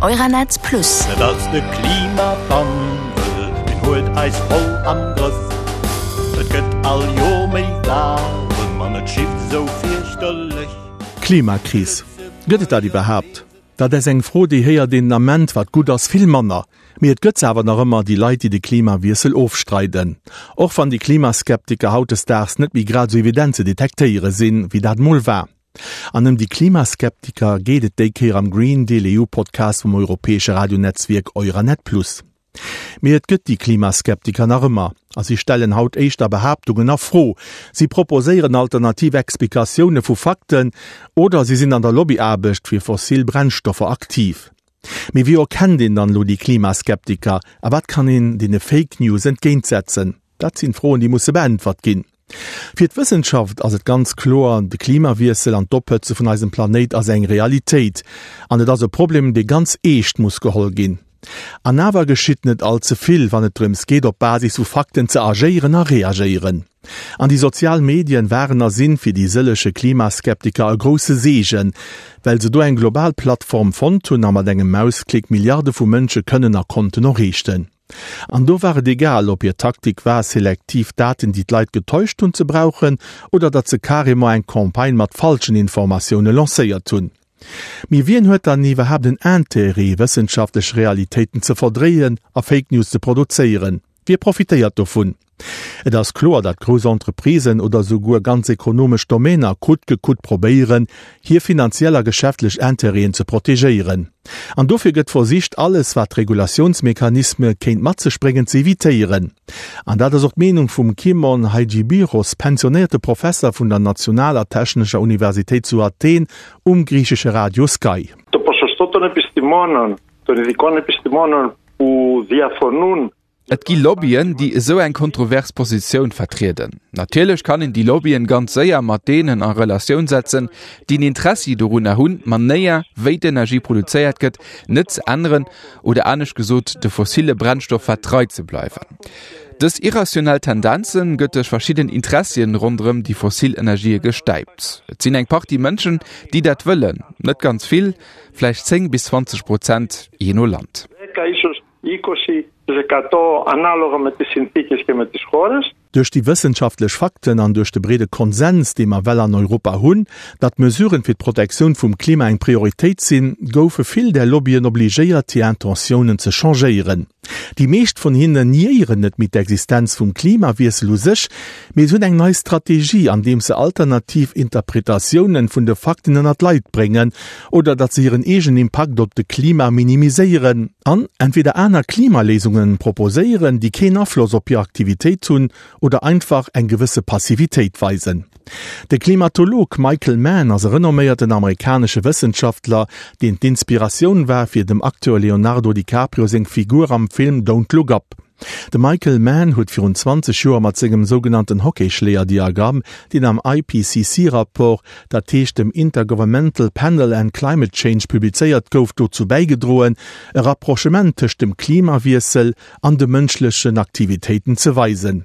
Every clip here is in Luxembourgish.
Euranet Plus. Et ass de Klimawandel, deen huet eis voll am Grëff. Et gëtt all Joer méi waarem an et schifft esou fierchterlech. Klimakris, Gëtt et dat iwwerhaapt? Dat ass eng Fro, déi héiert een den Ament, wat gutt ass, vill manner. Mee et gëtt se awer nach ëmmer, déi Leit, déi de Klimawiessel ofstreiden. Och wann déi Klimaskeptiker hautdesdaags net méi grad esou evident ze detektéiere sinn, wéi dat mol war. An ëm déi Klimaskeptiker geet et déi Kéier am Green Deal EU Podcast vum europäesche Radionetzwierk Euranet Plus. Mee et gëtt déi Klimaskeptiker nach ëmmer, a si stellen haut éischter Behaaptungen a Fro, si proposéieren alternativ Explikatioune vu Fakten oder si sinn an der Lobbyaarbecht fir fossil Brennstoffer aktiv. Mee wéi erkennt een dann elo déi Klimaskeptiker a wat kann een deene Fake News entgéintsetzen? Dat sinn Froen, déi musse beäntwert ginn. Fir d'Wëssenschaft ass et ganz kloer, de Klimawiessel an d'Ophëtze vun eisem Planéit ass eng Realitéit an et ass e Problem, dee ganz eescht muss geholl ginn. An awer geschitt net all ze vill, wann et drëms geet, op Basis vu Fakten ze agéieren a reagéieren. An déi sozial Medien waren a sinn fir déi sëllege Klimaskeptiker e grousse Seegen, well se do eng global Plattform fonnt hunn a mat engem Mausklick Milliarde vu Mënsche kënnen a konnten erreechten. An do war et egal, ob hir Taktik war, selektiv Daten, déi d'Leit getäuscht hunn, ze brauchen, oder datt se carrément eng Campagne mat falschen Informatioune lancéiert hunn. Mee wien huet dann iwwerhaapt en Intérêt, wëssenschaftlech Realitéiten ze verdréien a Fake News ze produzéieren? Wie profitéiert dovun? Et ass kloer, datt grouss Entreprisen oder souguer ganz ekonomesch Domainer coûte que coûte probéieren, hir finanziell a geschäftlech Intérêten ze protegéieren. An dofir gëtt versicht, alles, wat Regulatiounsmechanisme kéint mat sech bréngen, ze evitéieren. An dat ass och d'Meenung vum Kimon Hajibiros, pensionéierte Professer vun der Nationaler Technescher Universitéit zu Athen, um griichesche Radio Sky. Το ποσοστό των επιστημόνων, των ειδικών επιστημόνων που διαφωνούν Et gi Lobbyen, déi esou eng kontrovers Positioun vertrieden. Natierlech kann een déi Lobbyen ganz séier mat deenen a Relatioun setzen, déi en Interessi dorunner hunn, d'Manéier, wéi d'Energie produzéiert gëtt, net ze änneren oder anescht gesot, de fossille Brennstoffer trei ze bleiwen. Dës irrationell Tendenze gëtt duerch verschidden Interessien ronderëm déi fossil Energië gestäipt. Et sinn eng Partie Mënschen, déi dat wëllen, net ganz vill, vläicht 10 bis 20 Prozent, jee no Land. Duerch déi wëssenschaftlech Fakten an duerch de breede Konsens, dee mer well an Europa hunn, datt Mesuren fir d'Protektioun vum Klima eng Prioritéit sinn, goufe vill där Lobbyen obligéiert, hir Intentiounen ze changéieren. Déi meescht vun hinnen niéieren net méi d'Existenz vum Klimawiessel u sech, mee se hunn eng nei Strategie, andeems se alternativ Interpretatiounen vun de Fakten ënner d'Leit bréngen oder datt se hiren eegenen Impakt op de Klima minimiséieren an entweder aner Klimaléisungen proposéieren, déi keen Afloss op hir Aktivitéit hunn oder einfach eng gewësse Passivitéit weisen. De Klimatolog Michael Mann ass e renomméierten amerikanesche Wëssenschaftler, deen d'Inspiratioun war fir dem Acteur Leonardo DiCaprio seng Figur am Film Don't Look Up. De Michael Mann huet virun 20 Joer mat sengem sougenannten Hockeyschléier-Diagramm, deen am IPCC-Rapport, dat heescht dem Intergovernmental Panel and Climate Change, publizéiert gouf, dozou bäigedroen, e Rapprochement tëscht dem Klimawiessel an de mënschlechen Aktivitéiten ze weisen.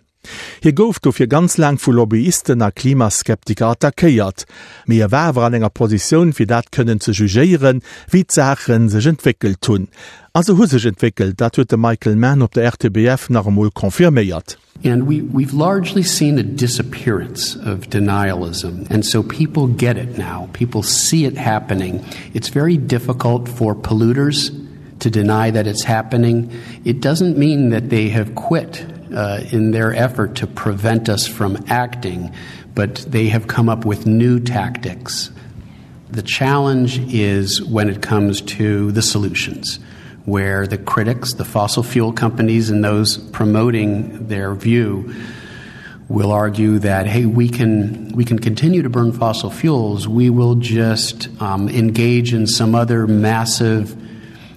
Hie gouf dofir ganz laang vu Lobbyisten a Klimaskeptiker attackéiert, mee e war awer an enger Positioun fir dat kënnen ze jugéieren, wéi d'Saache sech entwéckelt hunn. A se hu sech entwéckelt, dat huet de Michael Mann op der RTBF nach emol confirméiert. And we we've largely seen a disappearance of denialism and so people get it now. People see it happening. It's very difficult for polluters to deny that it's happening. It doesn't mean that they have quit uh, in their effort to prevent us from acting, but they have come up with new tactics. The challenge is when it comes to the solutions, where the critics, the fossil fuel companies, and those promoting their view will argue that hey we can we can continue to burn fossil fuels we will just um, engage in some other massive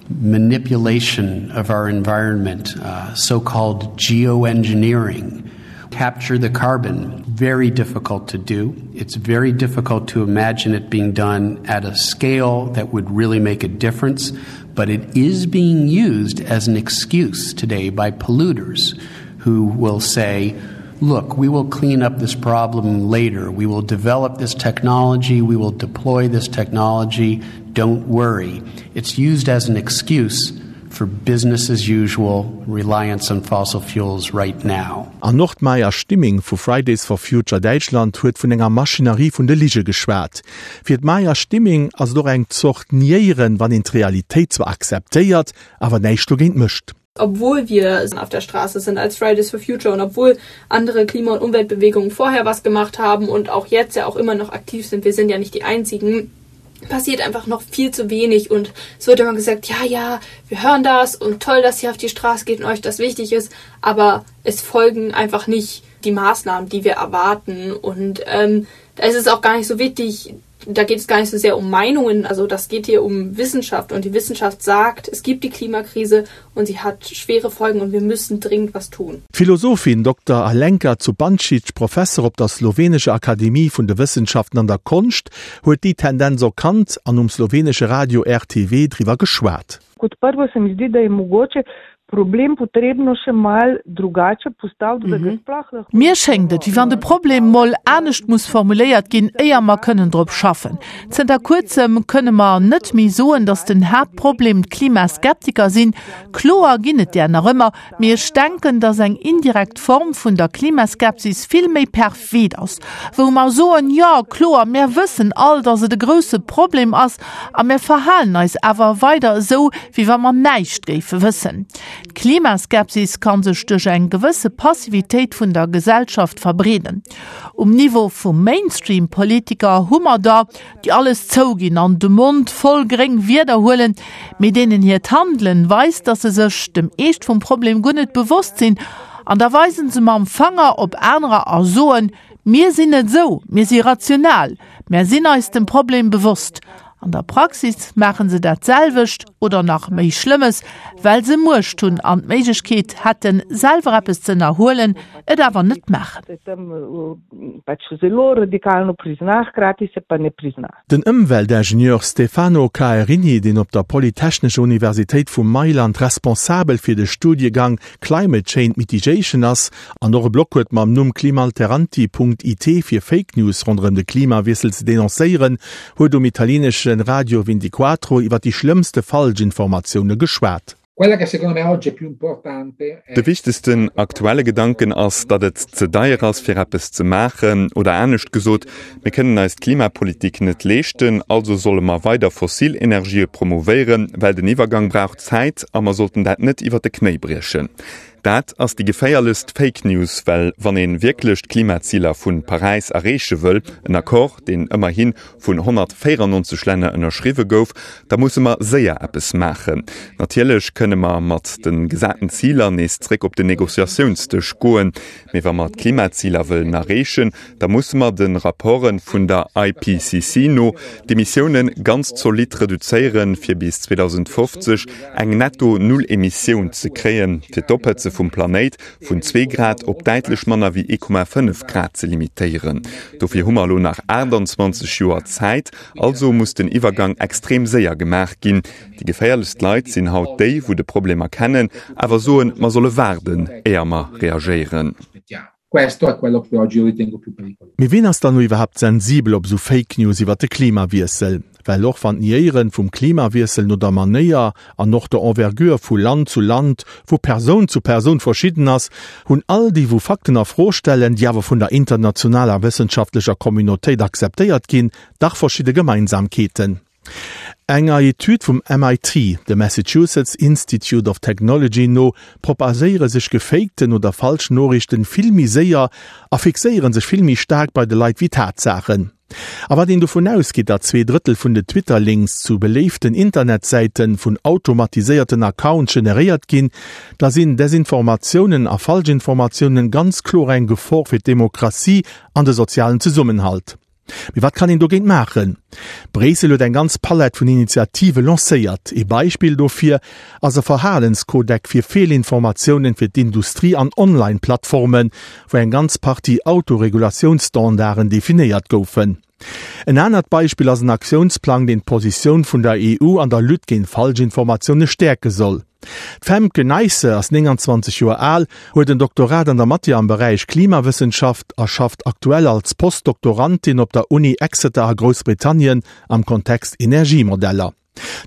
manipulation of our environment uh, so-called geoengineering capture the carbon very difficult to do it's very difficult to imagine it being done at a scale that would really make a difference but it is being used as an excuse today by polluters who will say look we will clean up this problem later we will develop this technology we will deploy this technology. don't worry. It's used as an excuse for business as usual reliance on fossil fuels right now. An och d'Maja Stimming vu Fridays for Future Däitschland huet vun enger Maschinerie vun de Lige geschwat. Fir d'Maja Stimming ass et och eng Zort Niéieren, wann een d'Realitéit zwar akzeptéiert, awer näischt dogéint mécht. Obwohl wir auf der Straße sind als Fridays for Future und obwohl andere Klima- und Umweltbewegungen vorher was gemacht haben und auch jetzt ja auch immer noch aktiv sind, wir sind ja nicht die einzigen, passiert einfach noch viel zu wenig und es wird immer gesagt, ja, ja, wir hören das und toll, dass ihr auf die Straße geht und euch das wichtig ist, aber es folgen einfach nicht die Maßnahmen, die wir erwarten und ähm, da ist es auch gar nicht so wichtig, da geht es gar nicht so sehr um Meinungen, also das geht hier um Wissenschaft und die Wissenschaft sagt, es gibt die Klimakrise und sie hat schwere Folgen und wir müssen dringend was tun. D'Philosophin Dokter Alenka Zupančič, Professer op der slowenescher Akademie vun de Wëssenschaften an der Konscht, huet déi Tendenz erkannt an um slowenesche Radio RTV driwwer geschwat. Kot prvo se mi zdi, da je mogoče problem potrebno še malo drugače postaviti, da ga sploh lahko. Mir schéngt et, wéi wann de Problem mol anescht muss formuléiert ginn, éier mer kënnen drop schaffen. Zënter kuerzem kënne mer net méi soen, datt den Haaptproblem d'Klimaskeptiker sinn. Kloer ginn et där nach ëmmer, mee ech denken, datt eng indirekt Form vun der Klimaskepsis vill méi perfid ass, wou mer soen, jo, kloer, mär wëssen all, datt et e grousse Problem ass, a mär verhalen eis awer weider esou, wéi wa mer näischt géife wëssen. D'Klimaskepsis ka sech duerch eng gewësse Passivitéit vun der Gesellschaft verbreeden. Um Niveau vu Mainstream-Politiker hu mer der, déi alles zouginn an de Mond voll gréng Wierder huelen, mee deenen hiert Handelen weist, dass se sech dem Eescht vum Problem guer net bewosst sinn. An da weisen se mam Fanger op anerer a soen, Mir sinn net esou, mir si rational, mär sinn eis dem Problem bewosst. An der Praxis maachen se dat selwecht oder nach méi Schlëmmes, well se Muecht hunn an d'Méiglechkeet hätten, selwer eppes ze ënnerhuelen, et awer net maachen. Den Ëmweltingenieur Stefano Caerini, deen op der Polytechnescher Universitéit vu Mailand responsabel fir de Studiegang Climate Change Mitigation ass an och e Blog huet mam Numm climalteranti Punkt it fir Fake News ronderëm de Klimawiessel ze denoncéieren, huet um italienesche Radio Vintiquattro iwwer déi schlëmmste Falschinformatioune geschwat. De wichtegsten aktuelle Gedanken ass, datt et ze deier ass, fir eppes ze maachen. Oder anescht gesot, Mir kënnen eis d'Klimapolitik net leeschten, also solle mer weider fossil Energië promouvéieren, well den Iwwergang brauch Zäit a mer sollten dat net iwwer de Knéi briechen. Dat ass déi geféierlechst Fake News, well wann ee wierklech d'Klimaziler vu Paräis erreeche wëll, en Accord, deen ëmmerhi vun 194 Länner ënnerschriwwe gouf, da musse mer séier eppes maachen. Natierlech kënne mer mat de gesaten Ziler nees zréck op den Negociatiounsdësch goen, mee wa mer d'Klimaziler wëllen erreechen, da musse mer de Rapporte vun der IPCC no d'Emissiounen ganz zolidd reduzéieren, fir bis 2050 eng Netto-Null-Emissioun ze kréien, fir d'Ophëtze vum Planéit vun zwee Grad op däitlech manner wéi 1,5 Grad ze limitéieren. Dofir hu mer elo nach 28 Joer Zäit. Also muss den Iwwergang extrem séier gemaach ginn. Déi geféierlechst Leit sinn haut déi, wou de Problem erkennen, awer soen, mer solle waarden, éier mer reagéieren. Questo è quello che oggi io ritengo più pericoloso. Mee ween ass dann lo iwwerhaapt sensibel op esou Fake News iwwert de Klimawiessel? Well och wann d'Niéieren vum Klimawiessel no der Manéier an och der Envergure vu Land zu Land, vu Persoun zu Persoun verschidden ass, hunn all déi wou Fakten a Fro stellen, déi awer vun der internationaler wëssenschaftlecher Communautéit akzeptéiert ginn, dach verschidde Gemeinsamkeeten. Enger Etüd vum MIT, dem Massachusetts Institute of Technology, no propagéiere sech gefakten oder falsch Noriichten vill méi séier a fixéiere sech vill méi staark bei de Leit wéi Tatsaachen. A wat een dovun ausgeet, datt 2/3 vun de Twitter-Links zu beléiften Internetsäite vun automatiséierten Accounts generéiert ginn, da sinn Desinformatiounen a Falschinformatiounen ganz kloer eng Gefor fir d'Demokratie an de sozialen Zesummenhalt. Mee wat kann een dogéint maachen? Bréissel huet eng ganz Palett vun Initiative lancéiert. Ee Beispill dofir ass e Verhalenskodeck fir Feelinformatiounen fir d'Industrie an Online-Plattformen, wou eng ganz Partie Autoregulatiounsstandarden definéiert goufen. En anert Beispill ass en Aktiounsplang, deen d'Positioun vun der EU an der Lutte géint Falschinformatioune stäerke soll. D'Femke Nijsse ass 29 Joer al, huet en Doktorat an der Matière am Beräich Klimawëssenschaft a schafft aktuell als Postdoktorandin op der Uni Exeter a Groussbritannien am Kontext Energiemodeller.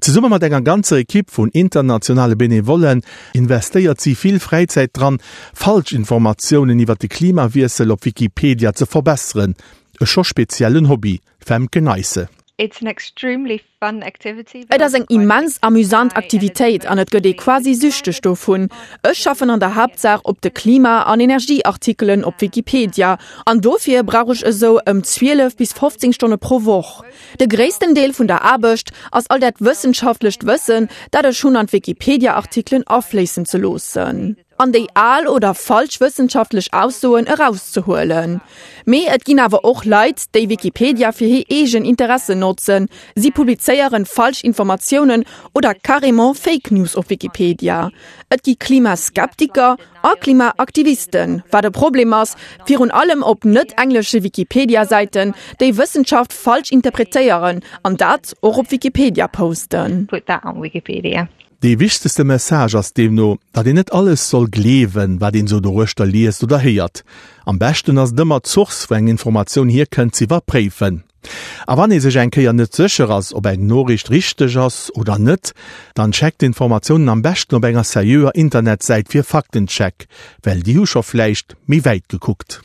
Zesumme mat enger ganzer Ekipp vun internationale Benevollen investéiert si vill Fräizäit dran, Falschinformatiounen iwwer de Klimawiessel op Wikipedia ze verbesseren. E scho speziellen Hobby, Femke Nijsse. Et ass eng immens amüsant Aktivitéit an et gëtt ee quasi süchteg dovun. Ech schaffen an der Haaptsaach op de Klima an Energieartikelen op Wikipedia an dofir brauch ech esou ëm 12 bis 15 Stonne pro Woch. De gréissten Deel vun der Aarbecht ass all dat wëssenschaftlecht Wëssen, dat ech hunn an d'Wikipedia-Artikelen afléissen ze loossen an déi al oder falsch wëssenschaftlech Aussoen erauszehuelen. Mee et ginn awer och Leit, déi Wikipedia fir hir eegen Interessen notzen. Si publizéieren falsch Informatiounen oder carrément Fake News op Wikipedia. Et gi Klimaskeptiker a Klimaaktivisten, wat e Problem ass, virun allem op net-englesche Wikipedia-Säiten, déi Wëssenschaft falsch interpretéieren an dat och op Wikipedia posten. Dee wichtegste Message ass deemno, datt een net alles soll gleewen, wat een esou doruechter liest oder héiert. Am beschten ass et ëmmer, d'Source, wou eng Informatioun hierkënnt, ze iwwerpréifen. A wann ee sech eng Kéier net sécher ass, ob eng Noriicht richteg ass oder net, dann checkt d'Informatiounen am beschten op enger seriöer Internetsäit fir Faktencheck, well déi hu scho vläicht méi wäit gekuckt.